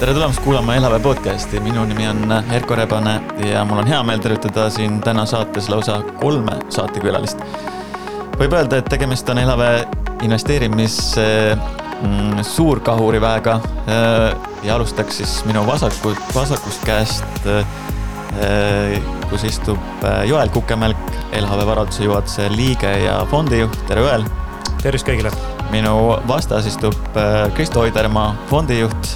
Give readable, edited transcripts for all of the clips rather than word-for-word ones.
Tere tulemast kuulama Elhave podcasti. Minu nimi on Erko Rebane ja mul on hea meel tervitada siin täna saates lausa 3 saatekülalist. Võib öelda, et tegemist on Elhave investeerimis suurkahuriväega ja alustaks siis minu vasakust käest, kus istub Joel Kukemelk, Elhave varalduse juhatuse liige ja fondijuht. Tere Joel! Tervist kõigile! Minu vastas istub Kristo Oidermaa, fondijuht.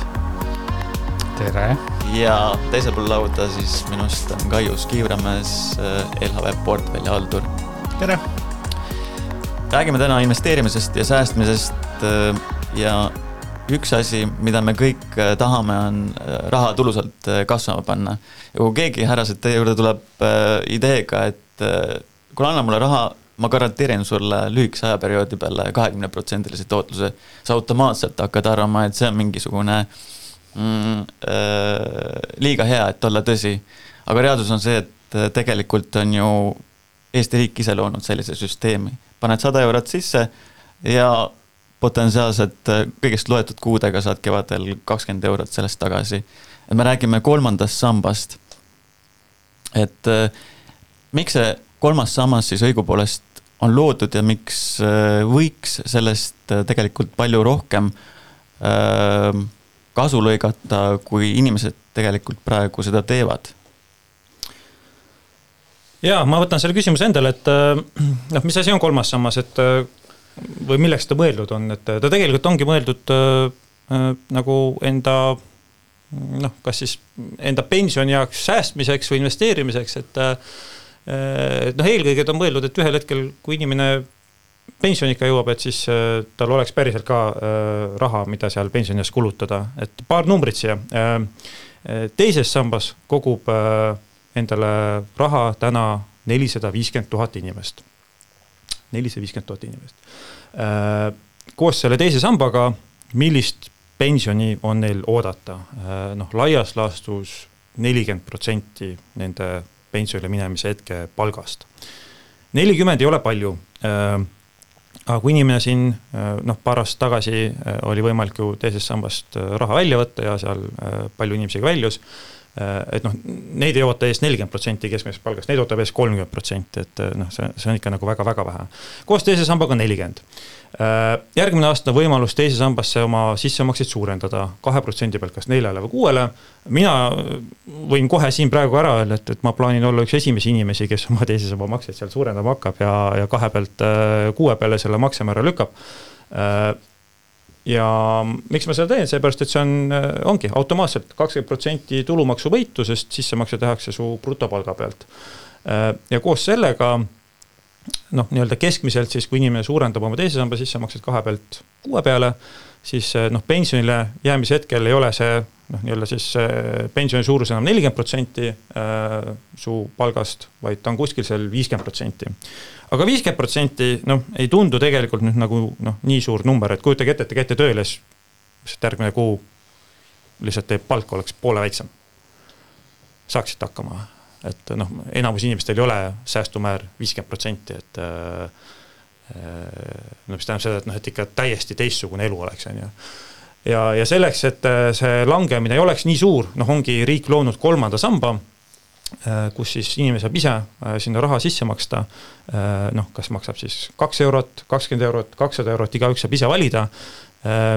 Tere! Ja teisel pool lauda siis minust on Kaius Kiivramäes, Elhave portfelli haldur. Tere! Räägime täna investeerimisest ja säästmisest ja üks asi, mida me kõik tahame, on raha tulusalt kasvama panna. Ja kui keegi härrased teie juurde tuleb ideega, et kui anna mulle raha, ma garanteerin sulle lühikese ajaperioodi peale 20% tootluse, sa automaatselt hakkad arvama, et see on mingisugune liiga hea, et olla tõsi. Aga reaalsus on see, et tegelikult on ju Eesti riik ise loonud sellise süsteemi. Paned 100 eurot sisse ja potentsiaalselt kõigest loetud kuudega saad kevadel 20 eurot sellest tagasi. Et me räägime 3. sambast. Et miks see 3. sammas siis õigupoolest on loodud ja miks võiks sellest tegelikult palju rohkem kasu lõigata, kui inimesed tegelikult praegu seda teevad? Jaa, ma võtan selle küsimuse endale, et mis asi on 3. sammas, et või milleks ta mõeldud on, et ta tegelikult ongi mõeldud nagu enda, kas siis enda pensioni jaoks säästmiseks või investeerimiseks, et eelkõige ta on mõeldud, et ühel hetkel, kui inimene pensionika jõuab, et siis tal oleks päriselt ka raha, mida seal pensionias kulutada. Et paar numbrit siia. Teises sambas kogub endale raha täna 450 000 inimest. 450 000 inimest. Koos selle teise sambaga, millist pensioni on neil oodata? Laias laastus 40% nende pensionile minemise hetke palgast. 40 ei ole palju. Aga kui inimene siin paar aastat tagasi oli võimalik ju teisest sambast raha välja võtta ja seal palju inimesega väljus, et neid ei oota ees 40% keskmisest palgast, neid ootab ees 30%, et see on ikka nagu väga-väga vähe. Koos teise sambaga 40. Järgmine aasta on võimalus teise sambasse oma sissemakseid suurendada 2% pealt kas 4 või 6. Mina võin kohe siin praegu ära öelda, et ma plaanin olla üks esimesi inimesi, kes oma teise samba makseid seal suurendama hakkab ja 2 pealt 6 peale selle maksemäära lükkab. Ja miks ma seda teen? Seepärast, et see ongi automaatselt 20% tulumaksu võitu, sest sissemakse tehakse su brutopalga pealt. Ja koos sellega nii-öelda keskmiselt siis, kui inimene suurendab oma teise samba sissemaksed 2 pealt 6 peale, siis pensionile jäämise hetkel ei ole see nii-öelda siis pensioni suurus enam 40% su palgast, vaid ta on kuskil seal 50%. Aga 50% ei tundu tegelikult nüüd nagu nii suur number, et kujutage ette, et te käite tööle, siis järgmine kuu lihtsalt teie palk oleks poole väiksem. Saaksite hakkama. Et enamus inimestel ei ole säästumäär 50%, et mis tähendab seda, et ikka täiesti teistsugune elu oleks. Ja selleks, et see langemine ei oleks nii suur, ongi riik loonud 3. samba, kus siis inimene saab ise sinna raha sisse maksta, kas maksab siis 2 eurot, 20 eurot, 200 eurot, igaüks saab ise valida,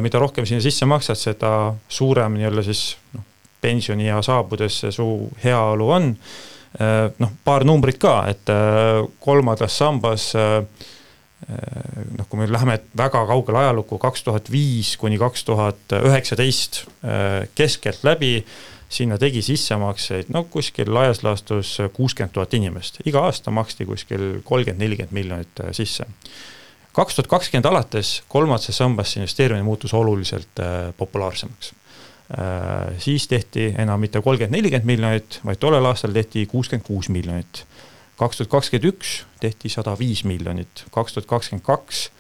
mida rohkem sinna sisse maksad, seda suurem nii-öelda siis pensioni ja saabudes su heaolu on. Paar numbrit ka, et 3. sambas, kui me läheme väga kaugele ajalukku 2005 kuni 2019 keskelt läbi, sinna tegi sissemakseid kuskil laias laastus 60 000 inimest. Iga aasta maksti kuskil 30-40 miljonit sisse. 2020 alates 3. sambasse investeerimine muutus oluliselt populaarsemaks. Siis tehti enam mitte 30-40 miljonit, vaid tollel aastal tehti 66 miljonit. 2021 tehti 105 miljonit, 2022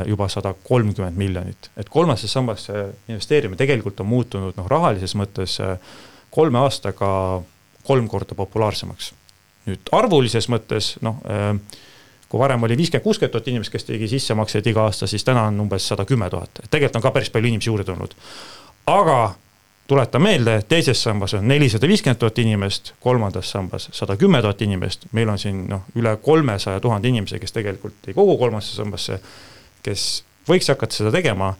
juba 130 miljonit. Et 3. sambasse investeerimine tegelikult on muutunud rahalises mõttes 3 aastaga 3 korda populaarsemaks. Nüüd arvulises mõttes, kui varem oli 50-60 000 inimest, kes tegi sissemakseid iga aasta, siis täna on umbes 110 000. Tegelikult on ka päris palju inimesi juurde tulnud. Aga tuletan meelde, teises sambas on 450 000 inimest, kolmandas sambas 110 000 inimest, meil on siin üle 300 000 inimese, kes tegelikult ei kogu kolmandasse sambasse, kes võiks hakata seda tegema.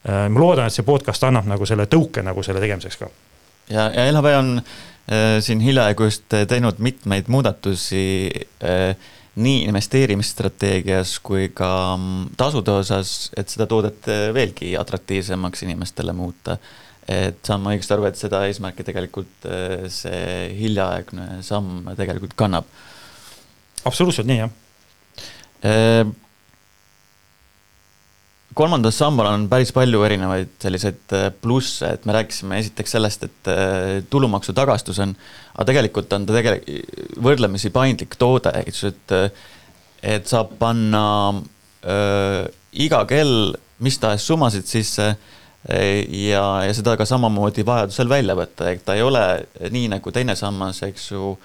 Ma loodan, et see podcast annab nagu selle tõuke nagu selle tegemiseks ka. Ja LHV on siin hiljaaegu just teinud mitmeid muudatusi nii investeerimisstrateegias kui ka tasude osas, et seda toodet veelgi atraktiivsemaks inimestele muuta. Et saan ma õigesti aru, et seda eesmärki tegelikult see hiljaaegne samm tegelikult kannab. Absoluutselt nii, jah. Kolmandas sambal on päris palju erinevaid selliseid plusse, et me rääkisime esiteks sellest, et tulumaksu tagastus on, aga tegelikult on ta võrdlemisi paindlik toode, et saab panna iga kell mis tahes summasid sisse ja seda ka samamoodi vajadusel välja võtta, et ta ei ole nii nagu teine sammas, eks ju,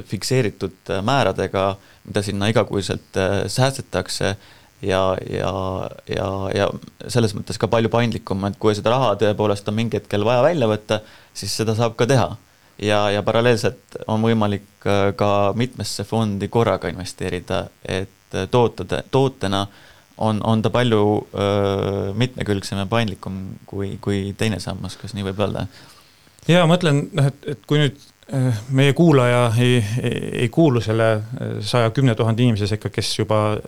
fikseeritud määradega, mida sinna igakuiselt säästetakse ja selles mõttes ka palju paindlikum, et kui seda raha tõepoolest on mingi hetkel vaja välja võtta, siis seda saab ka teha. Ja paralleelselt on võimalik ka mitmesse fondi korraga investeerida, et tootena on ta palju mitmekülgsem ja paindlikum kui teine sammas, kas nii võib öelda? Ja mõtlen, et kui nüüd meie kuulaja ei kuulu selle 110 000 inimese sekka, kes juba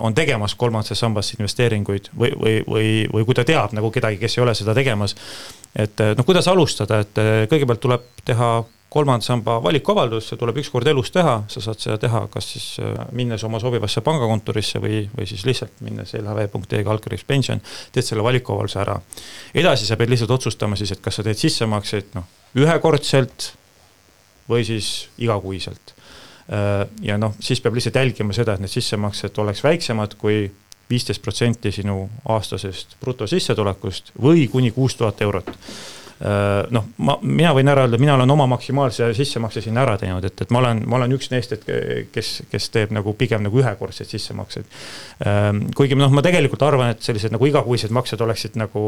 on tegemas kolmandasse sambasse investeeringuid või kui ta teab nagu kedagi, kes ei ole seda tegemas, et kuidas alustada, et kõigepealt tuleb teha kolmanda samba valikuavaldus, see tuleb üks kord elus teha, sa saad seda teha kas siis minnes oma sobivasse pangakontorisse või siis lihtsalt minnes lhv.ee/pension, teed selle valikuavalduse ära. Edasi sa pead lihtsalt otsustama siis, et kas sa teed sissemakseid ühekordselt või siis igakuiselt. Ja siis peab lihtsalt jälgima seda, et need sissemaksed oleks väiksemad kui 15% sinu aastasest brutosissetulekust või kuni 6000 eurot. Mina võin ära öelda, mina olen oma maksimaalse sissemakse sinna ära teinud, et ma olen üks neist, kes teeb nagu pigem nagu ühekordseid sissemakseid. Kuigi ma tegelikult arvan, et sellised nagu igakuised maksed oleksid nagu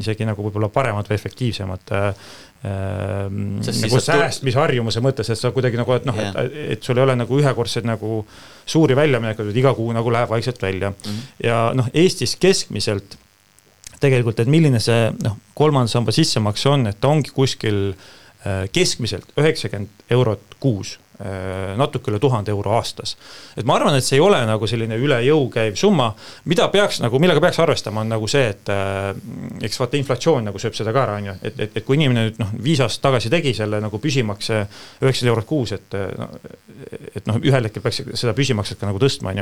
isegi nagu võib-olla paremad või efektiivsemad nagu säästmisharjumuse mõttes, et sa kuidagi nagu, et sul ei ole nagu ühekordseid nagu suuri väljaminekud, iga kuu nagu läheb vaikselt välja. Ja Eestis keskmiselt tegelikult, et milline see kolmanda samba sissemakse on, et ta ongi kuskil keskmiselt 90 eurot kuus, natuke üle 1000 euro aastas. Et ma arvan, et see ei ole nagu selline üle jõu käiv summa, millega peaks arvestama on nagu see, et eks vaata inflatsioon nagu sööb seda ka ära, et kui inimene nüüd 5 aastat tagasi tegi selle nagu püsimakse 90 eurot kuus, et ühel hetkel peaks seda püsimakset ka nagu tõstma,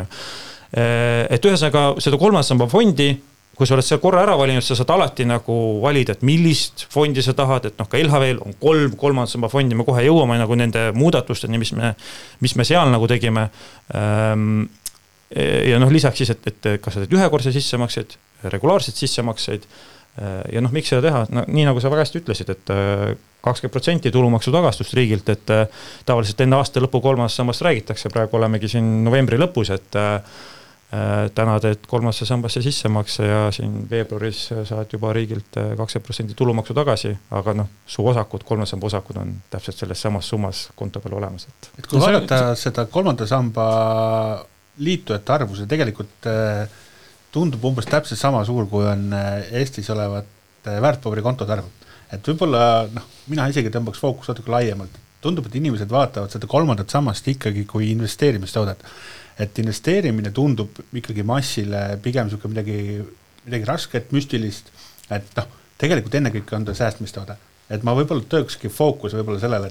et ühesõnaga seda kolmanda samba fondi, kui sa oled seal korra ära valinud, sa saad alati nagu valida, et millist fondi sa tahad, et ka LHV-l on 3 kolmanda samba fondi, me kohe jõuame nagu nende muudatusteni, mis me seal nagu tegime. Ja lisaks siis, et kas sa teed ühekordse sissemakseid, regulaarseid sissemakseid ja miks seda teha? Nii nagu sa väga hästi ütlesid, et 20% tulumaksu tagastust riigilt, et tavaliselt enne aasta lõpu kolmandast sammast räägitakse, praegu olemegi siin novembri lõpus, et täna teed kolmandasse sambasse sissemakse ja siin veebruaris saad juba riigilt 20% tulumaksu tagasi, aga su osakud, kolmanda samba osakud on täpselt selles samas summas konto peal olemas. Et kui vaadata seda kolmanda samba liitujate arvu, see tegelikult tundub umbes täpselt sama suur, kui on Eestis olevat väärtpaberikontot arvud. Et võib-olla, mina isegi tõmbaks fookus natuke laiemalt. Tundub, et inimesed vaatavad seda kolmandat sammast ikkagi kui investeerimistoodet. Et investeerimine tundub ikkagi massile pigem midagi rasket, müstilist, et tegelikult ennekõike on ta säästmistoode. Et ma võib-olla töökski fookus võib-olla sellele,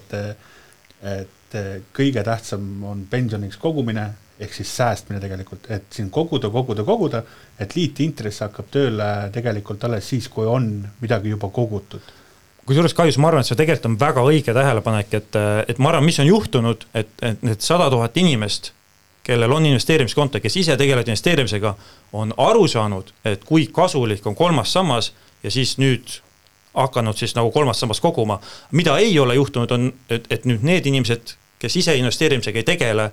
et kõige tähtsam on pensioniks kogumine, ehk siis säästmine tegelikult, et siin koguda, et liitintress hakkab tööle tegelikult alles siis, kui on midagi juba kogutud. Kusjuures kahjus, ma arvan, et see tegelikult on väga õige tähelepanek, et ma arvan, mis on juhtunud, et need 100 000 inimest, kellel on investeerimiskonto, kes ise tegelevad investeerimisega, on aru saanud, et kui kasulik on kolmas sammas ja siis nüüd hakanud siis nagu kolmas sammas koguma. Mida ei ole juhtunud on, et nüüd need inimesed, kes ise investeerimisega ei tegele,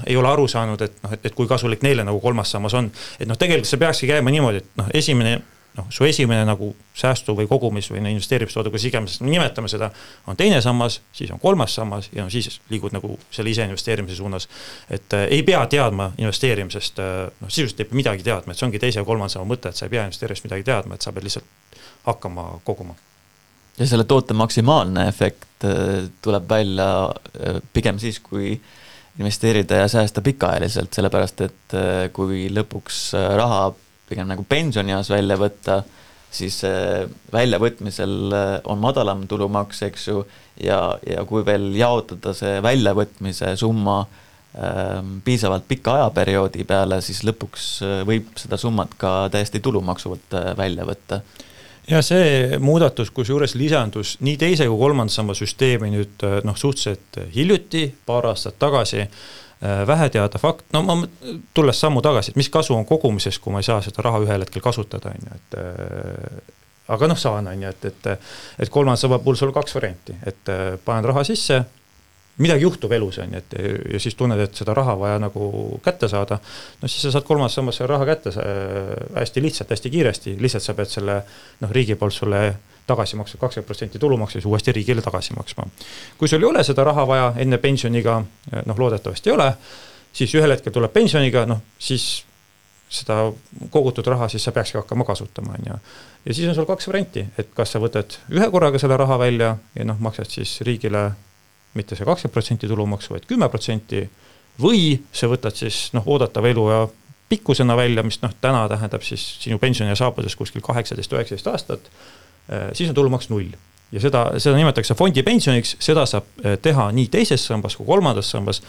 ei ole aru saanud, et kui kasulik neile nagu kolmas sammas on. Et tegelikult see peakski käima niimoodi, et esimene su esimene nagu säästu või kogumis või investeerimistoode, kus iganes nimetame seda, on teine sammas, siis on kolmas sammas ja siis liigud nagu selle ise investeerimise suunas. Et ei pea teadma investeerimisest, sisuliselt ei pea midagi teadma, et see ongi teise ja kolmanda sama mõte, et sa ei pea investeerimist midagi teadma, et sa pead lihtsalt hakkama koguma. Ja selle toote maksimaalne efekt tuleb välja pigem siis, kui investeerida ja säästa pikaajaliselt, sellepärast et kui lõpuks raha pigem nagu pensionieas välja võtta, siis väljavõtmisel on madalam tulumaks, eks ju, ja kui veel jaotada see väljavõtmise summa piisavalt pika ajaperioodi peale, siis lõpuks võib seda summat ka täiesti tulumaksuvalt välja võtta. Ja see muudatus, kus juures lisandus nii teise kui kolmanda samba süsteemi nüüd suhteliselt hiljuti, paar aastat tagasi, vähe teada fakt, ma tulles sammu tagasi, et mis kasu on kogumises, kui ma ei saa seda raha ühel hetkel kasutada, aga saan, et kolmanda samba puhul sul 2 varianti, et panen raha sisse, midagi juhtub elus, ja siis tunned, et seda raha vaja nagu kätte saada, siis sa saad kolmandas sambas selle raha kätte hästi lihtsalt, hästi kiiresti, lihtsalt sa pead selle riigi poolt sulle tagasi maksma 20% tulumaksu, siis uuesti riigile tagasi maksma. Kui sul ei ole seda raha vaja enne pensioniga, loodetavasti ei ole, siis ühel hetkel tuleb pensioniga, siis seda kogutud raha siis sa peakski hakkama kasutama. Ja siis on sul 2 varianti, et kas sa võtad ühe korraga selle raha välja ja maksad siis riigile mitte see 20% tulumaksu, vaid 10%, või sa võtad siis oodatava elu ja pikkusena välja, mis täna tähendab siis sinu pensioni saabudes kuskil 18-19 aastat, siis on tulumaks 0. Ja seda nimetatakse fondi pensioniks, seda saab teha nii teises sambas kui kolmandas sambas.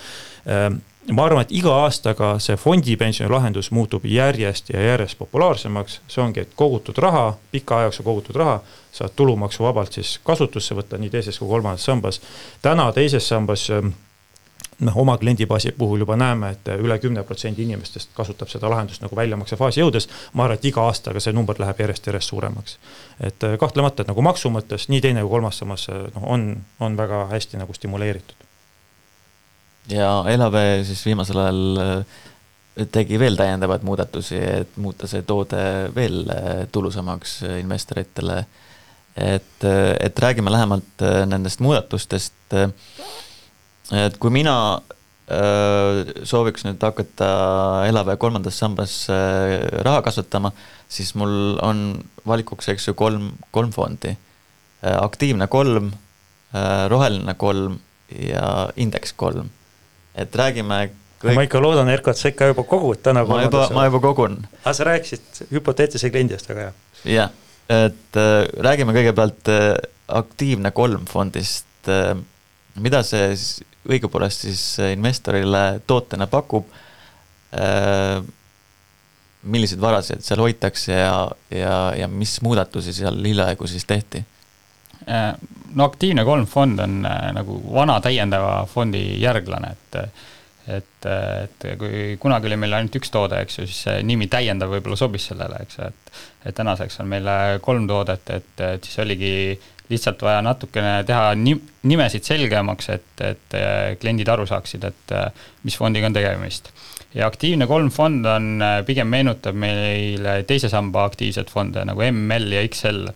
Ma arvan, et iga aastaga see fondi pensioni lahendus muutub järjest ja järjest populaarsemaks. See ongi, et kogutud raha, pika ajaks kogutud raha, saad tulumaksu vabalt siis kasutusse võtta nii teises kui kolmandas sambas. Täna teises sambas oma kliendibaasi puhul juba näeme, et üle 10% inimestest kasutab seda lahendust nagu väljamakse faasi jõudes. Ma arvan, et iga aastaga see number läheb järjest suuremaks. Et kahtlemata, et nagu maksu mõttes nii teine kui kolmas samas on väga hästi nagu stimuleeritud. Ja LHV siis viimasel ajal tegi veel täiendavad muudatusi, et muuta see toode veel tulusamaks investoritele. Et räägime lähemalt nendest muudatustest. Et kui mina sooviks nüüd hakata LHV kolmandas sambas raha kasvatama, siis mul on valikuks, eks ju, kolm fondi. Aktiivne 3, roheline 3 ja indeks 3. Et räägime Ma ikka loodan, Erko, et sa ikka juba kogud täna. Ma juba kogun. Aga sa rääkisid hüpoteetilise kliendist, aga jah. Jah, et räägime kõigepealt aktiivne 3 fondist. Mida see õigupoolest siis investorile tootena pakub, milliseid varasid seal hoitakse ja mis muudatusi seal hiljaaegu siis tehti? No aktiivne 3 fond on nagu vana täiendava fondi järglane, et kui kunagi oli meil ainult 1 toode, eks ju, siis see nimi täiendav võib-olla sobis sellele, eks, et tänaseks on meil 3 toodet, et siis oligi lihtsalt vaja natukene teha nimesid selgemaks, et kliendid aru saaksid, et mis fondiga on tegemist. Ja aktiivne 3 fond on pigem meenutab meile teise samba aktiivsed fonde nagu ML ja XL.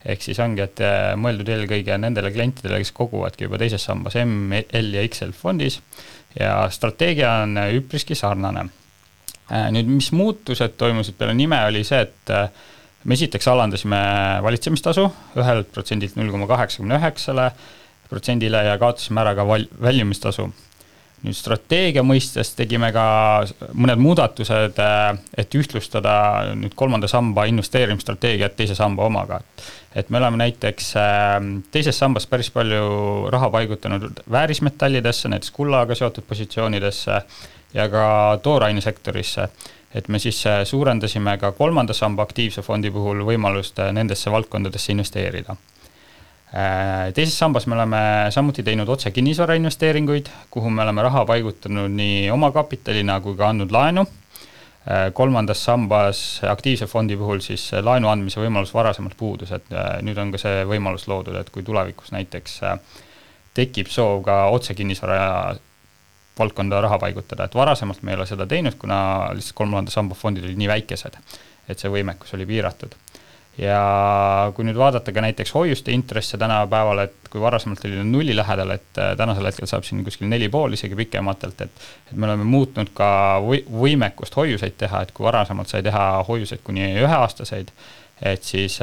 Ehk siis ongi, et mõeldud eelkõige nendele klientidele, kes koguvadki juba teises sambas ML ja XL fondis ja strateegia on üpriski sarnane. Nüüd, mis muutused toimusid peale nime oli see, et me esiteks alandasime valitsemistasu 1% 0,89% ja kaotasime ära ka väljumistasu. Nüüd strateegia mõistes tegime ka mõned muudatused, et ühtlustada nüüd kolmanda samba investeerimisstrateegiat teise samba omaga. Et me oleme näiteks teises sambas päris palju raha paigutanud väärismetallidesse, näiteks kullaga seotud positsioonidesse ja ka toorainesektorisse. Et me siis suurendasime ka kolmanda samba aktiivse fondi puhul võimalust nendesse valdkondadesse investeerida. Teises sambas me oleme samuti teinud otse kinnisvara investeeringuid, kuhu me oleme raha paigutanud nii oma kapitalina kui ka andnud laenu. Kolmandas sambas aktiivse fondi puhul siis laenu andmise võimalus varasemalt puudus, et nüüd on ka see võimalus loodud, et kui tulevikus näiteks tekib soov ka otse kinnisvara valdkonda raha paigutada, et varasemalt me ei ole seda teinud, kuna lihtsalt kolmanda samba fondid olid nii väikesed, et see võimekus oli piiratud. ja kui nüüd vaadata ka näiteks hoiuste intresse tänapäeval, et kui varasemalt oli nulli lähedal, et tänasel hetkel saab siin kuskil 4,5 isegi pikematelt, et me oleme muutnud ka võimekust hoiuseid teha, et kui varasemalt sai teha hoiuseid kuni 1-aastaseid, et siis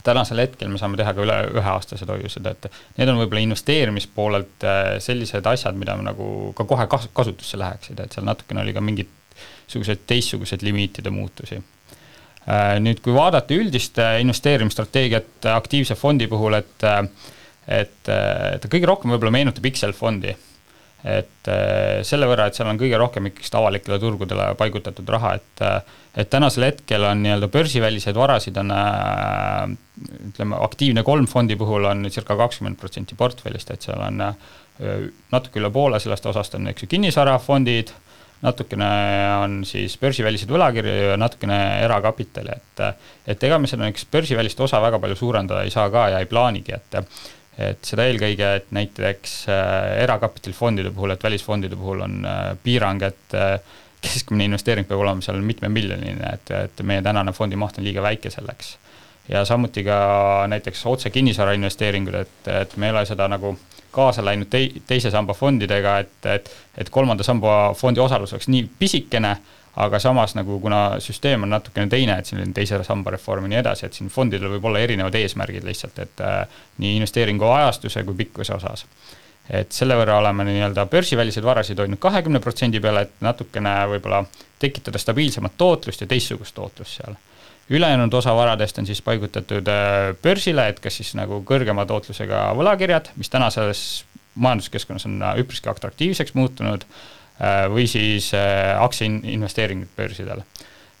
tänasel hetkel me saame teha ka üle 1-aastased hoiused, et need on võib-olla investeerimispoolelt sellised asjad, mida me nagu ka kohe kasutusse läheksid, et seal natukene oli ka mingid teistsugused limiitide muutusi. Nüüd, kui vaadata üldist investeerimisstrateegiat aktiivse fondi puhul, et kõige rohkem võib-olla meenutab Excel-fondi. Et selle võrra, et seal on kõige rohkem ikkagi avalikele turgudele paigutatud raha, et tänasel hetkel on nii-öelda börsiväliseid varasid on, ütleme, aktiivne 3 fondi puhul on circa 20% portfellist, et seal on natuke üle poole sellest osast on kinnisvarafondid, natukene on siis börsivälised võlakirju ja natukene erakapitali, et ega me seda börsivälist osa väga palju suurendada ei saa ka ja ei plaanigi, et seda eelkõige, et näiteks erakapitalifondide puhul, et välisfondide puhul on piirang, et keskmine investeering peab olema seal mitme miljoniline, et meie tänane fondi maht on liiga väike selleks. Ja samuti ka näiteks otse kinnisvara investeeringud, et me ei ole seda nagu kaasa läinud teise samba fondidega, et kolmanda samba fondi osalus oleks nii pisikene, aga samas nagu kuna süsteem on natukene teine, et siin on teise samba reform ja nii edasi, et siin fondidel võib olla erinevad eesmärgid lihtsalt, et nii investeeringu ajastuse kui pikkuse osas. Et selle võrra oleme nii-öelda börsiväliseid varasid hoidnud 20% peale, et natukene võib-olla tekitada stabiilsemat tootlust ja teistsugust tootlust seal. Ülejäänud osa varadest on siis paigutatud börsile, et kas siis nagu kõrgema tootlusega võlakirjad, mis tänases majanduskeskkonnas on üpriski atraktiivseks muutunud, või siis aktsiainvesteeringud börsidel.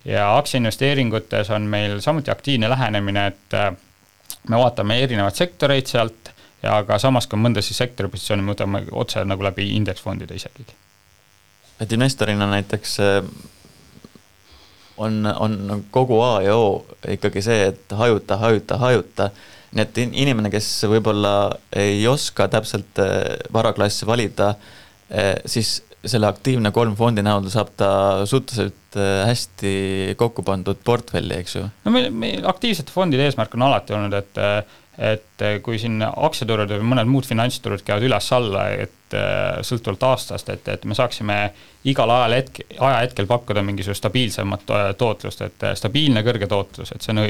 Ja aktsiainvesteeringutes on meil samuti aktiivne lähenemine, et me vaatame erinevad sektoreid sealt ja ka samas ka mõnda siis sektori positsiooni me võtame otse nagu läbi indeksfondide isegi. Et investorina näiteks on kogu A ja O ikkagi see, et hajuta. Nii et inimene, kes võib-olla ei oska täpselt varaklassi valida, siis selle aktiivne 3 fondi näol saab ta suhteliselt hästi kokku pandud portfelli, eks ju? No meil aktiivsete fondide eesmärk on alati olnud, et kui siin aktsiaturud või mõned muud finantsturud käivad üles-alla, et sõltuvalt aastast, et me saaksime igal ajahetkel pakkuda mingisugust stabiilsemat tootlust, et stabiilne kõrge tootlus, et see on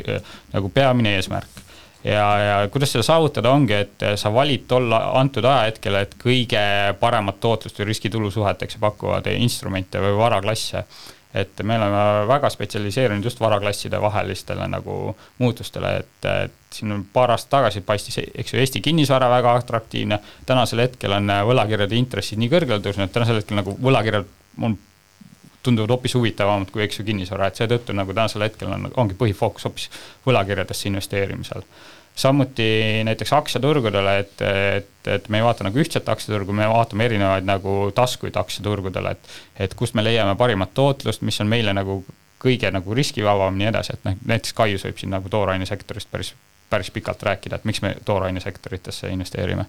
nagu peamine eesmärk. Ja kuidas seda saavutada ongi, et sa valid tolla antud ajahetkel, et kõige paremat tootlust või riskitulu suheteks pakkuvad instrumente või varaklasse. Et me oleme väga spetsialiseerinud just varaklasside vahelistele nagu muutustele, et siin paar aastat tagasi paistis, eks ju, Eesti kinnisvara väga atraktiivne, tänasel hetkel on võlakirjade intressid nii kõrgele tõusnud, et tänasel hetkel nagu võlakirjad tunduvad hoopis huvitavamad kui eks ju kinnisvara, et seetõttu nagu tänasel hetkel ongi põhifookus hoopis võlakirjadesse investeerimisel. Samuti näiteks aktsiaturgudele, et me ei vaata nagu ühtset aktsiaturgu, me vaatame erinevaid nagu taskuid aktsiaturgudele, et kust me leiame parimat tootlust, mis on meile nagu kõige nagu riskivabam nii edasi, et näiteks Kaius võib siin nagu toorainesektorist päris pikalt rääkida, et miks me toorainesektoritesse investeerime.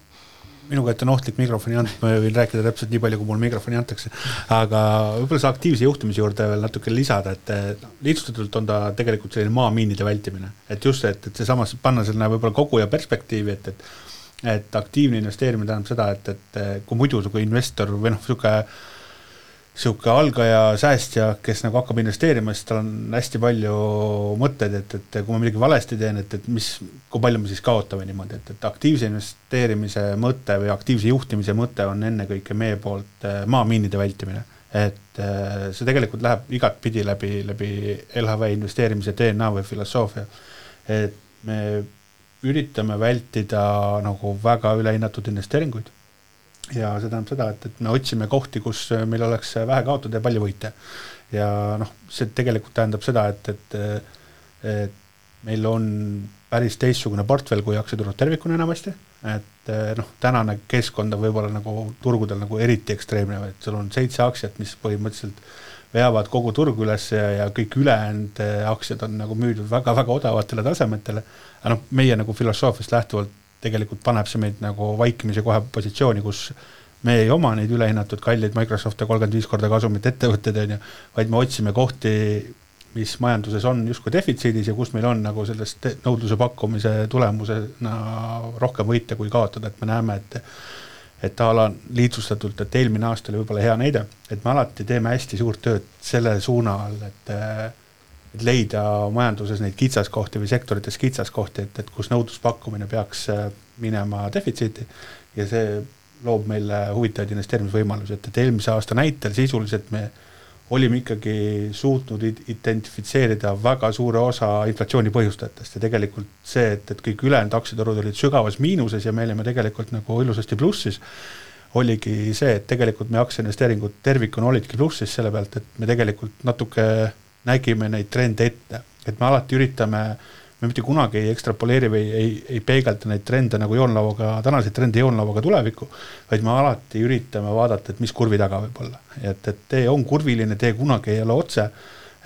Minu kätte on ohtlik mikrofoni anda, ma võin rääkida täpselt nii palju, kui mul mikrofoni antakse, aga võib-olla see aktiivse juhtimise juurde veel natuke lisada, et lihtsustatult on ta tegelikult selline maamiinide vältimine, et just see, et see samas panna selline võib-olla kogu ja perspektiivi, et aktiivne investeerimine tähendab seda, et kui muidu kui investor või siuke algaja säästja, kes nagu hakkab investeerima, siis tal on hästi palju mõtted, et kui ma midagi valesti teen, et kui palju me siis kaotame niimoodi, et aktiivse investeerimise mõte või aktiivse juhtimise mõte on ennekõike meie poolt maamiinide vältimine. Et see tegelikult läheb igat pidi läbi LHV investeerimise DNA või filosoofia. Et me üritame vältida nagu väga ülehinnatud investeeringuid. Ja see tähendab seda, et me otsime kohti, kus meil oleks vähe kaotada ja palju võita. Ja see tegelikult tähendab seda, et meil on päris teistsugune portfell kui aktsiaturud tervikuna enamasti, et tänane keskkond on võib-olla nagu turgudel nagu eriti ekstreemne, et sul on 7 aktsiat, mis põhimõtteliselt veavad kogu turgu üles ja kõik ülejäänud aktsiad on nagu müüdud väga-väga odavatele tasemetele, aga meie nagu filosoofiast lähtuvalt tegelikult paneb see meid nagu vaikimise kohe positsiooni, kus me ei oma neid ülehinnatud kalleid Microsoft 35 korda kasumit ettevõtted, vaid me otsime kohti mis majanduses on justkui defitsiidis ja kus meil on nagu sellest nõudluse pakkumise tulemusena rohkem võita kui kaotada, et me näeme, et ala lihtsustatult, et eelmine aasta oli võib-olla hea näide, et me alati teeme hästi suurt tööd selle suuna all, et leida majanduses neid kitsaskohti või sektorites kitsaskohti, et kus nõudluspakkumine peaks minema defitsiiti ja see loob meile huvitavaid investeerimisvõimalusi, et eelmise aasta näitel sisuliselt me olime ikkagi suutnud identifitseerida väga suure osa inflatsiooni põhjustajatest ja tegelikult see, et kõik ülejäänud aktsiaturud olid sügavas miinuses ja me olime tegelikult nagu ilusasti plussis, oligi see, et tegelikult me aktsiainvesteeringud tervikuna olidki plussis selle pealt, et me tegelikult natuke nägime neid trende ette, et me alati üritame, me mitte kunagi ei ekstrapoleeri või ei peegelda neid trende nagu joonlauaga, tänaseid trende joonlauaga tulevikku, vaid me alati üritame vaadata, et mis kurvi taga võib olla. Et tee on kurviline, tee kunagi ei ole otse,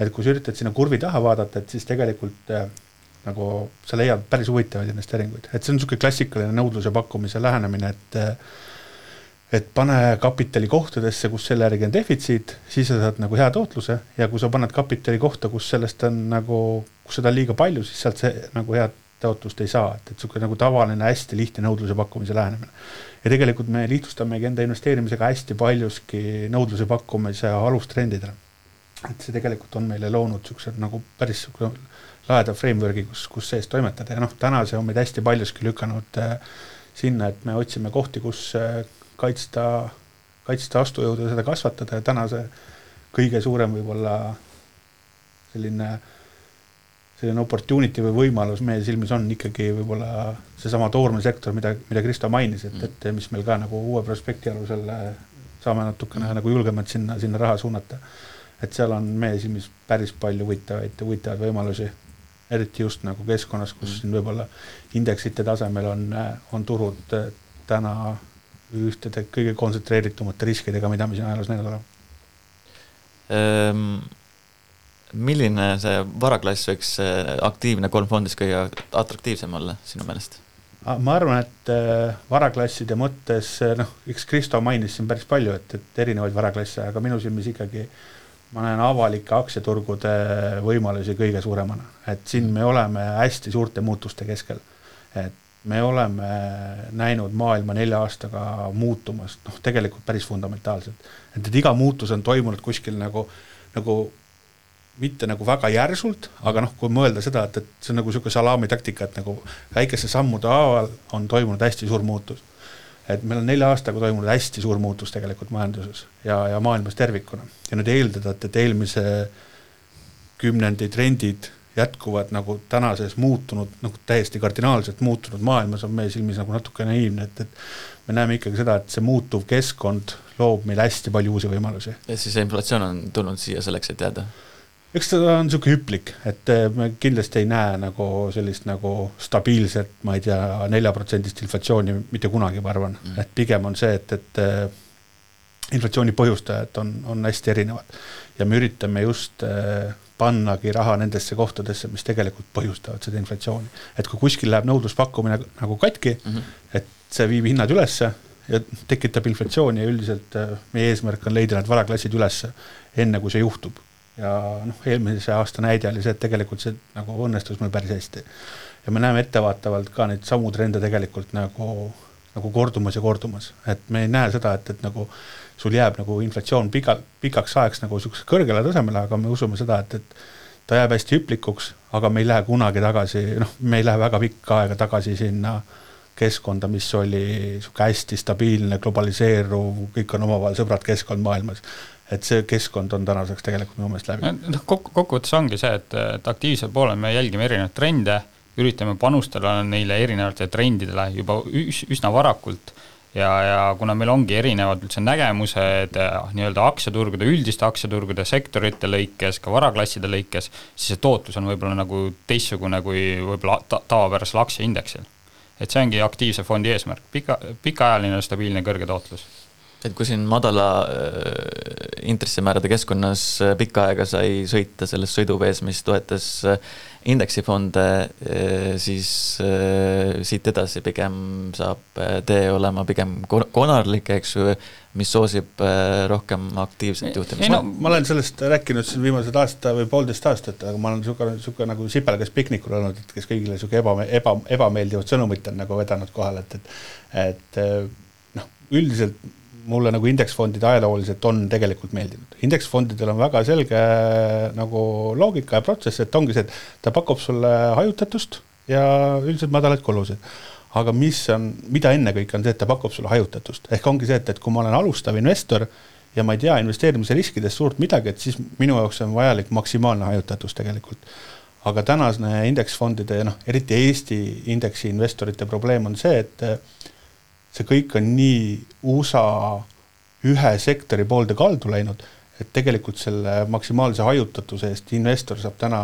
et kui sa üritad sinna kurvi taha vaadata, et siis tegelikult nagu sa leiad päris huvitavaid investeeringuid. Et see on niisugune klassikaline nõudluse pakkumise lähenemine, et pane kapitali kohtadesse, kus selle järgi on defitsiit, siis sa saad nagu hea tootluse ja kui sa paned kapitali kohta, kus sellest on nagu, kus seda on liiga palju, siis sealt see nagu head tootlust ei saa, et niisugune nagu tavaline hästi lihtne nõudluse pakkumise lähenemine. Ja tegelikult me lihtsustamegi enda investeerimisega hästi paljuski nõudluse pakkumise alustrendidele. Et see tegelikult on meile loonud niisugused nagu päris laeda frameworki, kus sees toimetada ja täna see on meid hästi paljuski lükanud sinna, et me otsime kohti, kus kaitsta astujõudu ja seda kasvatada ja täna see kõige suurem võib-olla selline opportunity või võimalus meie silmis on ikkagi võib-olla seesama toormesektor, mida Kristo mainis, et mis meil ka nagu uue prospekti alusel saame natukene nagu julgemalt sinna raha suunata. Et seal on meie silmis päris palju huvitavaid võimalusi, eriti just nagu keskkonnas, kus siin võib-olla indeksite tasemel on turud täna ühtede kõige kontsentreeritumate riskidega, mida me siin ajaloos näinud oleme. Milline see varaklass võiks aktiivne kolmfondis kõige atraktiivsem olla sinu meelest? Ma arvan, et varaklasside mõttes, eks Kristo mainis siin päris palju, et erinevaid varaklasse, aga minu silmis ikkagi ma näen avalike aktsiaturgude võimalusi kõige suuremana. Et siin me oleme hästi suurte muutuste keskel. Et me oleme näinud maailma 4 aastaga muutumas, tegelikult päris fundamentaalselt. Et iga muutus on toimunud kuskil nagu mitte nagu väga järsult, aga kui mõelda seda, et see on nagu selline salami taktika, et nagu väikese sammude haaval on toimunud hästi suur muutus. Et meil on 4 aastaga toimunud hästi suur muutus tegelikult majanduses ja maailmas tervikuna. Ja nüüd eeldada, et eelmise kümnendi trendid jätkuvad nagu tänases muutunud, nagu täiesti kardinaalselt muutunud maailmas on meie silmis nagu natuke naiivne, et me näeme ikkagi seda, et see muutuv keskkond loob meil hästi palju uusi võimalusi. Ja siis inflatsioon on tulnud siia selleks, et jääda? Eks seda on niisugune hüplik, et me kindlasti ei näe nagu sellist nagu stabiilset, ma ei tea, 4% inflatsiooni mitte kunagi, ma arvan. Et pigem on see, et inflatsiooni põhjustajad on hästi erinevad ja me üritame just pannagi raha nendesse kohtadesse, mis tegelikult põhjustavad seda inflatsiooni. Et kui kuskil läheb nõudluspakkumine nagu katki, et see viib hinnad ülesse ja tekitab inflatsiooni ja üldiselt meie eesmärk on leida need varaklassid ülesse enne, kui see juhtub. Ja eelmise aasta näide oli see, et tegelikult see nagu õnnestus meil päris hästi. Ja me näeme ettevaatavalt ka neid samu trende tegelikult nagu kordumas ja kordumas. Et me ei näe seda, et nagu sul jääb nagu inflatsioon pikaks ajaks nagu kõrgele tasemele, aga me usume seda, et ta jääb hästi hüplikuks, aga me ei lähe kunagi tagasi, me ei lähe väga pikka aega tagasi sinna keskkonda, mis oli hästi stabiilne, globaliseeruv, kõik on omavahel sõbrad keskkond maailmas. Et see keskkond on tänaseks tegelikult minu meelest läbi. Kokkuvõttes ongi see, et aktiivsel poolel me jälgime erinevaid trende, üritame panustada neile erinevate trendidele juba üsna varakult ja kuna meil ongi erinevad üldse nägemused nii-öelda aktsiaturgude, üldiste aktsiaturgude, sektorite lõikes, ka varaklasside lõikes, siis see tootlus on võib-olla nagu teistsugune kui võib-olla tavapärasel aktsiaindeksil. Et see ongi aktiivse fondi eesmärk, pikaajaline, stabiilne, kõrge tootlus. Et kui siin madala intressimäärade keskkonnas pikka aega sai sõita selles sõiduvees, mis toetas indeksifonde, siis siit edasi pigem saab tee olema pigem konarlik, eks ju, mis soosib rohkem aktiivset juhtimist. Ma olen sellest rääkinud siin viimased aasta või 1,5 aastat, aga ma olen suke nagu sipelgas piknikul olnud, et kes kõigile suke ebameeldivad sõnumit on nagu vedanud kohal, et üldiselt mulle nagu indeksfondide ajalooliselt on tegelikult meeldinud. Indeksfondidel on väga selge nagu loogika ja protsess, et ongi see, et ta pakub sulle hajutatust ja üldiselt madalaid kulusid. Aga mida enne kõik on see, et ta pakub sulle hajutatust. Ehk ongi see, et kui ma olen alustav investor ja ma ei tea investeerimise riskidest suurt midagi, et siis minu jaoks on vajalik maksimaalne hajutatus tegelikult. Aga tänasne indeksfondide ja eriti Eesti indeksi investorite probleem on see, et see kõik on nii USA ühe sektori poolde kaldu läinud, et tegelikult selle maksimaalse hajutatuse eest investor saab täna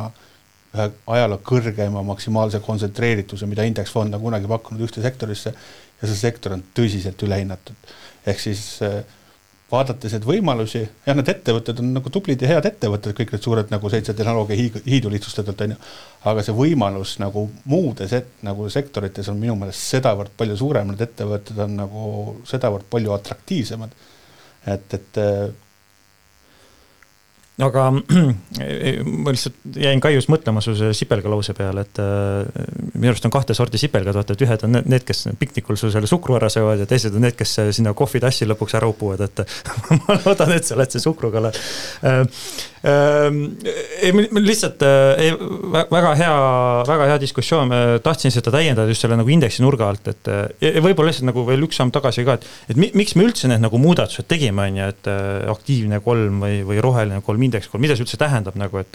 ühe ajaloo kõrgema maksimaalse kontsentreerituse, mida indeksfond on kunagi pakkunud ühte sektorisse ja see sektor on tõsiselt ülehinnatud. Ehk siis vaadates need võimalusi, ja need ettevõtted on nagu tublid ja head ettevõtted, kõik need suured nagu 7 tehnoloogia hiidu lihtsustatult, aga see võimalus nagu muudes nagu sektorites on minu meelest sedavõrd palju suurem, need ettevõtted on nagu sedavõrd palju atraktiivsemad. Et aga ma lihtsalt jäin Kaius mõtlema su sipelga lause peale, et minu arust on 2 sorti sipelgad, vaata, et ühed on need, kes piknikul su selle sukru ära söövad ja teised on need, kes sinna kohvitassi lõpuks ära upuvad, et ma loodan, et sa oled see sukruga. Lihtsalt väga hea diskussioon, tahtsin seda täiendada just selle nagu indeksi nurga alt, et võib-olla lihtsalt nagu veel üks samm tagasi ka, et miks me üldse need nagu muudatused tegime, et aktiivne 3 või roheline 3 indeks 3, mida see üldse tähendab nagu, et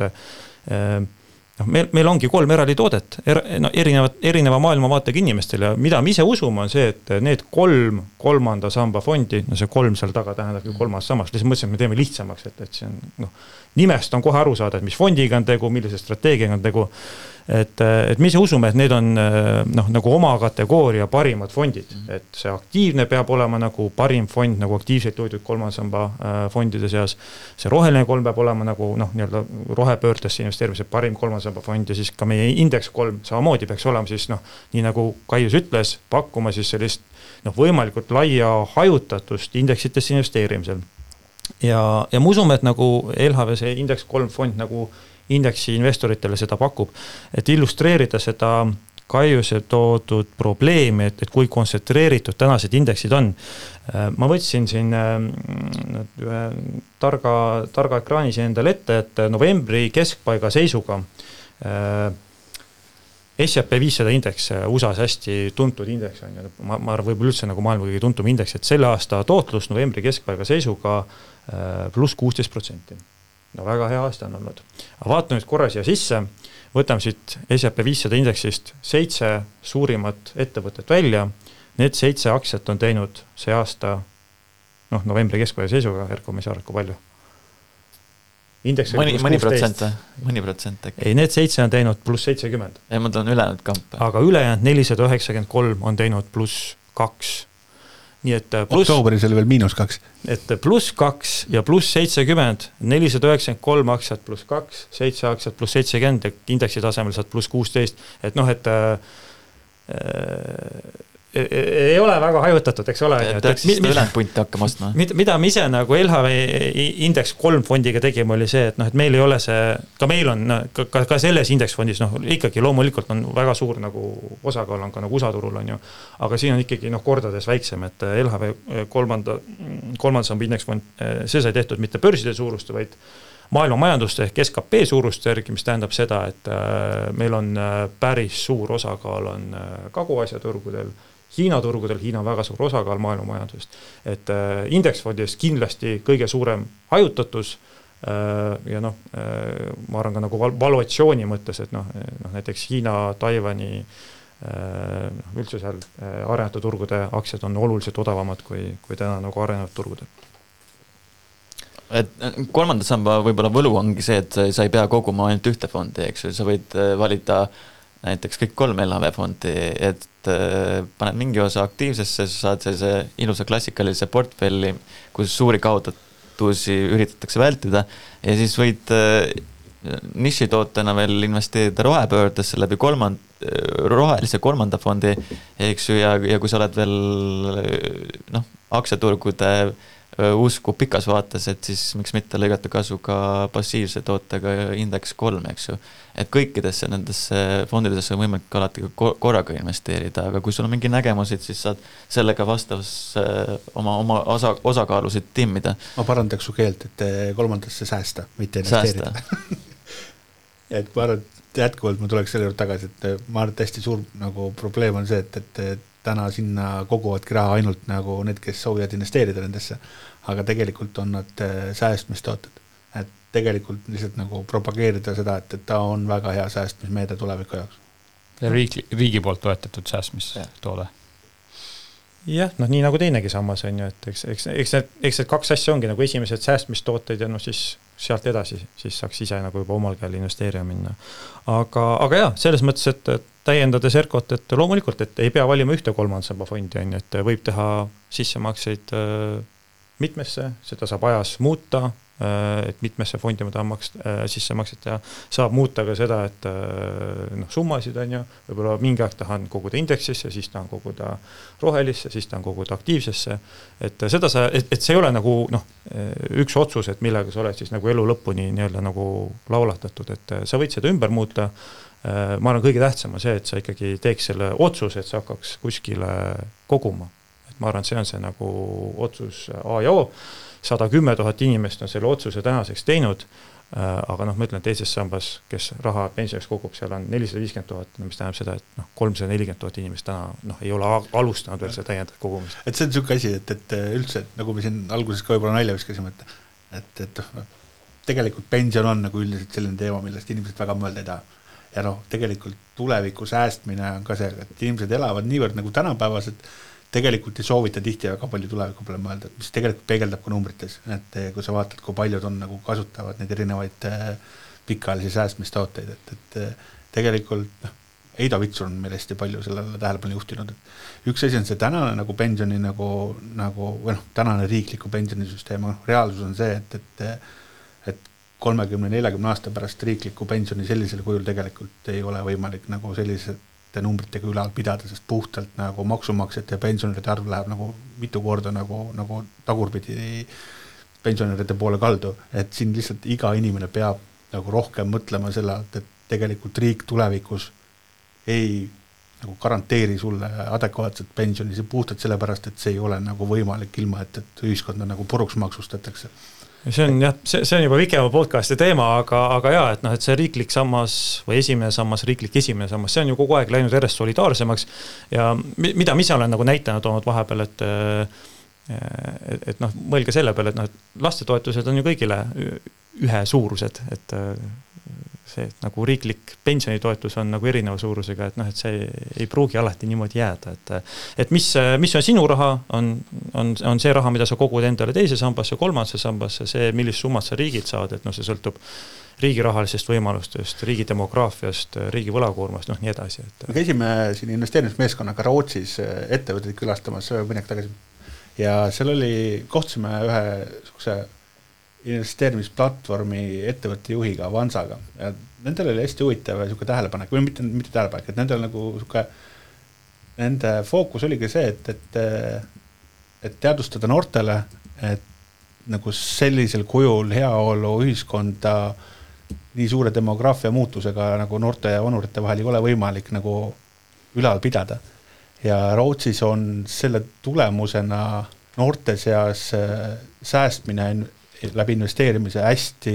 meil ongi 3 eraldi toodet erineva maailmavaatega inimestel ja mida me ise usume on see, et need 3 kolmanda samba fondi, see 3 seal taga tähendab 3. sammast, lihtsalt mõtlesin, et me teeme lihtsamaks, et see on nimest on kohe aru saada, et mis fondiga on tegu, millise strateegiaga on tegu, et me ise usume, et need on nagu oma kategooria parimad fondid, et see aktiivne peab olema nagu parim fond, nagu aktiivselt toidud 3. samba fondide seas, see roheline 3 peab olema nagu nii-öelda rohepöördesse investeerimise parim 3. samba fond ja siis ka meie indeks 3 samamoodi peaks olema siis nii nagu Kaius ütles, pakkuma siis sellist võimalikult laia hajutatust indeksitesse investeerimisel. Ja ma usume, et nagu LHV see indeks 3 fond nagu indeksi investoritele seda pakub, et illustreerida seda Kaiuse toodud probleemi, et kui kontsentreeritud tänased indeksid on. Ma võtsin siin ühe targa ekraanis endale ette, et novembri keskpaiga seisuga S&P 500 indeks, USA's hästi tuntud indeks on, ma arvan, võib-olla üldse nagu maailma kõige tuntum indeks, et selle aasta tootlus novembri keskpaiga seisuga pluss 16%. Väga hea aasta on olnud. Aga vaatame nüüd korra siia sisse, võtame siit S&P 500 indeksist 7 suurimat ettevõtet välja. Need 7 aktsiat on teinud see aasta novembri keskpaiga seisuga, Erko, me ei saa arvu palju. Mõni protsent äkki. Ei, need 7 on teinud pluss 70. Ei, ma tahan ülejäänud kampe. Aga ülejäänud 493 on teinud pluss 2. Nii et oktoobris oli veel -2. Et pluss 2 ja pluss 70, 493 aktsiat pluss 2, 7 aktsiat pluss 70 ja indeksi tasemel saad pluss 16. Et ei ole väga hajutatud, eks ole. Peaks siis ülejäänud punti hakkama ostma. Mida me ise nagu LHV indeks 3 fondiga tegime oli see, et meil ei ole see, ka meil on ka selles indeksfondis, ikkagi loomulikult on väga suur nagu osakaal on ka nagu USA turul on ju, aga siin on ikkagi kordades väiksem, et LHV 3. samba indeksfond, see sai tehtud mitte börside suurust, vaid maailma majanduste ehk SKP suurust järgi, mis tähendab seda, et meil on päris suur osakaal on Kagu-Aasia turgudel, Hiina turgudel, Hiina on väga suur osakaal maailma majandusest, et indeksfondis kindlasti kõige suurem hajutatus ja ma arvan ka nagu valuatsiooni mõttes, et näiteks Hiina, Taiwani üldse seal arenenud turgude aktsiad on oluliselt odavamad kui täna nagu arenenud turgudel. Et 3. samba võib-olla võlu ongi see, et sa ei pea koguma ainult ühte fondi, eks ju, sa võid valida näiteks kõik 3 LHV fondi, et paned mingi osa aktiivsesse, sa saad sellise ilusa klassikalise portfelli, kus suuri pettusi üritatakse vältida ja siis võid nišitootena veel investeerida rohepöördesse läbi rohelise kolmanda fondi, eks ju, ja kui sa oled veel aktsiaturgude usku pikas vaates, et siis miks mitte lõigata kasu ka passiivse tootega indeks 3, eks ju. Et kõikidesse nendesse fondidesse on võimalik alati korraga investeerida, aga kui sul on mingi nägemusid, siis saad sellega vastavas oma osakaalusid timmida. Ma parandaks su keelt, et kolmandasse säästa, mitte investeerida. Et ma arvan, jätkuvalt ma tuleks selle juurde tagasi, et ma arvan, et hästi suur nagu probleem on see, et täna sinna koguvadki raha ainult nagu need, kes soovivad investeerida nendesse, aga tegelikult on nad säästmistooted. Et tegelikult lihtsalt nagu propageerida seda, et ta on väga hea säästmismeede tuleviku jaoks. Ja riigi poolt toetatud säästmistoode. Jah, nii nagu teinegi sammas on ju, et eks need kaks asja ongi nagu esimesed säästmistooted ja siis sealt edasi, siis saaks ise nagu juba omal käel investeerima minna. Aga jah, selles mõttes, et täiendades ERKOt, et loomulikult, et ei pea valima ühte kolmandsamba fondi, on, et võib teha sissemakseid mitmesse, seda saab ajas muuta, et mitmesse fondi ma tahan sissemakset ja saab muuta ka seda, et summasid on ju, võib-olla mingi aeg tahan koguda indeksisse, siis tahan koguda rohelisse, siis tahan koguda aktiivsesse, et seda et see ei ole nagu üks otsus, et millega sa oled siis nagu elu lõpuni nii-öelda nagu laulatatud, et sa võid seda ümber muuta. Ma arvan, kõige tähtsam on see, et sa ikkagi teeks selle otsuse, et sa hakkaks kuskile koguma. Et ma arvan, see on see nagu otsus A ja O. 110 000 inimest on selle otsuse tänaseks teinud, aga ma ütlen, teises sambas, kes raha pensioniks kogub, seal on 450 000, mis tähendab seda, et 340 000 inimest täna ei ole alustanud veel seda täiendavat kogumist. Et see on selline asi, et üldse, nagu me siin alguses ka võib-olla nalja viskasime, et tegelikult pension on nagu üldiselt selline teema, millest inimesed väga mõelda ei taha. Ja tegelikult tuleviku säästmine on ka see, et inimesed elavad niivõrd nagu tänapäevas, et tegelikult ei soovita tihti väga palju tuleviku peale mõelda, mis tegelikult peegeldab ka numbrites, et kui sa vaatad, kui paljud on nagu kasutavad neid erinevaid pikaajalisi säästmistooteid, et tegelikult Eida Vitsur on meil hästi palju sellele tähelepanu juhtinud, et üks asi on see tänane nagu pensioni tänane riikliku pensionisüsteem, reaalsus on see, et 30-40 aasta pärast riikliku pensioni sellisel kujul tegelikult ei ole võimalik nagu sellisete numbritega ülal pidada, sest puhtalt nagu maksumaksjate ja pensionäride arv läheb nagu mitu korda nagu tagurpidi pensionäride poole kaldu, et siin lihtsalt iga inimene peab nagu rohkem mõtlema selle, et tegelikult riik tulevikus ei nagu garanteeri sulle adekvaatset pensioni, see puhtalt sellepärast, et see ei ole nagu võimalik ilma, et ühiskonda nagu puruks maksustatakse. See on juba pikema podcasti teema, aga jah, et see riiklik sammas või esimene sammas, esimene sammas, see on ju kogu aeg läinud järjest solidaarsemaks ja mida mis olen nagu näitena toonud vahepeal, et mõelge selle peale, et lastetoetused on ju kõigile ühe suurused, et see nagu riiklik pensionitoetus on nagu erineva suurusega, et see ei pruugi alati niimoodi jääda, et mis on sinu raha, on see raha, mida sa kogud endale teise sambasse, kolmandasse sambasse, see, millist summat sa riigilt saad, et see sõltub riigi rahalisest võimalustest, riigi demograafiast, riigi võlakoormast, nii edasi. Me käisime siin investeerimismeeskonnaga Rootsis ettevõtteid külastamas mõnek tagasi ja seal kohtusime ühe sukse investeerimisplatvormi ettevõtte juhiga, Avansaga. Ja nendel oli hästi huvitav ja tähelepanek, või mitte tähelepanek, et nendel nagu nende fookus oligi see, et teadvustada noortele, et nagu sellisel kujul heaolu ühiskonda nii suure demograafia muutusega nagu noorte ja vanurite vahel ei ole võimalik nagu ülal pidada. Ja Rootsis on selle tulemusena noorte seas säästmine läbi investeerimise hästi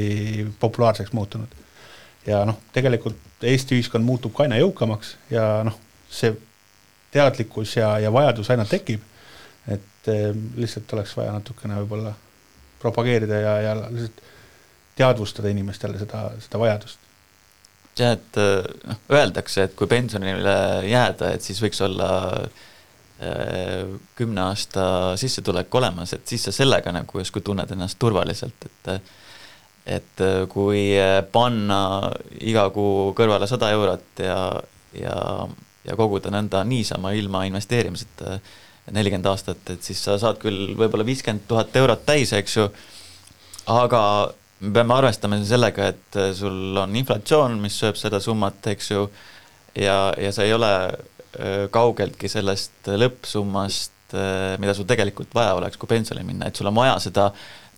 populaarseks muutunud. Ja tegelikult Eesti ühiskond muutub ka aina jõukamaks ja see teadlikkus ja vajadus aina tekib, et lihtsalt oleks vaja natukene võib-olla propageerida ja lihtsalt teadvustada inimestele seda vajadust. Ja, et öeldakse, et kui pensionile jääda, et siis võiks olla 10 aasta sissetulek olemas, et siis sa sellega nagu justkui tunned ennast turvaliselt, et kui panna iga kuu kõrvale 100 eurot ja koguda nõnda niisama ilma investeerimiseta 40 aastat, et siis sa saad küll võib-olla 50 000 eurot täis, eks ju, aga me peame arvestama sellega, et sul on inflatsioon, mis sööb seda summat, eks ju, ja sa ei ole kaugeltki sellest lõppsummast, mida sul tegelikult vaja oleks, kui pensioni minna, et sul on vaja seda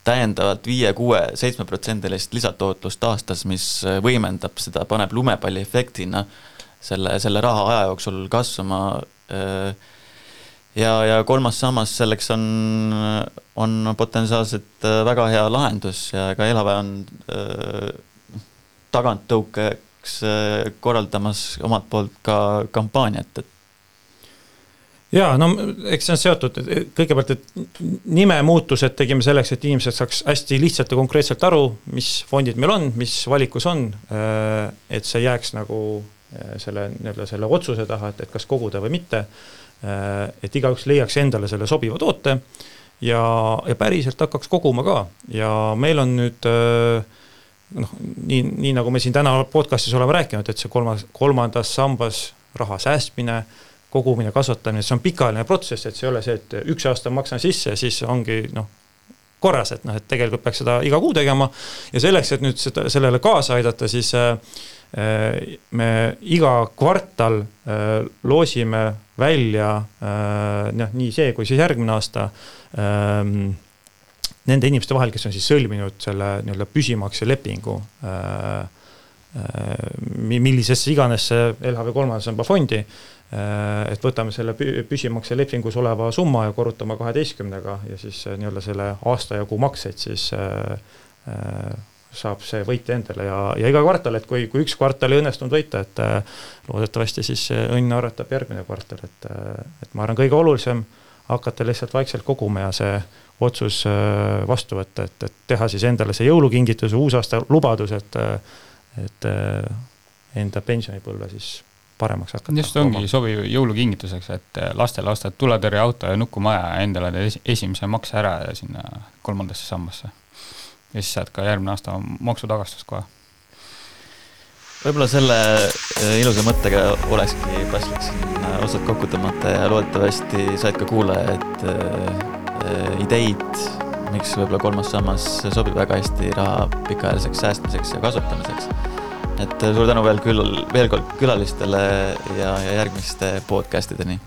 täiendavalt 5, 6, 7% lisatootlust aastas, mis võimendab seda, paneb lumepalli efektina selle raha aja jooksul kasvama. Ja kolmas sammas selleks on potentsiaalselt väga hea lahendus ja ka Elava on taganttõukeks korraldamas omalt poolt ka kampaaniat. Jaa, no eks see on seotud kõigepealt, et nime muutused tegime selleks, et inimesed saaks hästi lihtsalt ja konkreetselt aru, mis fondid meil on, mis valikus on, et see jääks nagu selle otsuse taha, et kas koguda või mitte, et igaüks leiaks endale selle sobiva toote ja päriselt hakkaks koguma ka. Ja meil on nüüd, nii nagu me siin täna podcastis oleme rääkinud, et see kolmandas sambas raha säästmine, kogumine, kasvatamine, see on pikaajaline protsess, et see ei ole see, et 1 aasta maksan sisse ja siis ongi korras, et tegelikult peaks seda iga kuu tegema ja selleks, et nüüd sellele kaasa aidata, siis me iga kvartal loosime välja nii see kui siis järgmine aasta nende inimeste vahel, kes on siis sõlminud selle püsimakse lepingu millisesse iganes LHV 3. samba fondi, et võtame selle püsimakse lepingus oleva summa ja korrutame 12-ga ja siis selle aasta ja kuu makseid siis saab see võita endale ja iga kvartal, et kui 1 kvartal ei õnnestunud võita, et loodetavasti siis õnn arvatab järgmine kvartal, et ma arvan kõige olulisem hakata lihtsalt vaikselt koguma ja see otsus vastu võtta, et teha siis endale see jõulukingitus, uusaasta lubadus, et enda pensionipõlve siis paremaks hakata. Just ongi sobiv jõulukingituseks, et lastele ostad tuletõrjeauto ja nukumaja ja endale esimese makse ära ja sinna 3. sambasse. Ja siis saad ka järgmine aasta maksutagastus kohe. Võib-olla selle ilusa mõttega olekski paslik siin osad kokku tõmmata ja loodetavasti said ka kuulajad ideid, miks võib-olla 3. sammas sobib väga hästi raha pikaajaliseks säästmiseks ja kasutamiseks. Et suur tänu veel kord külalistele ja järgmiste podcastideni.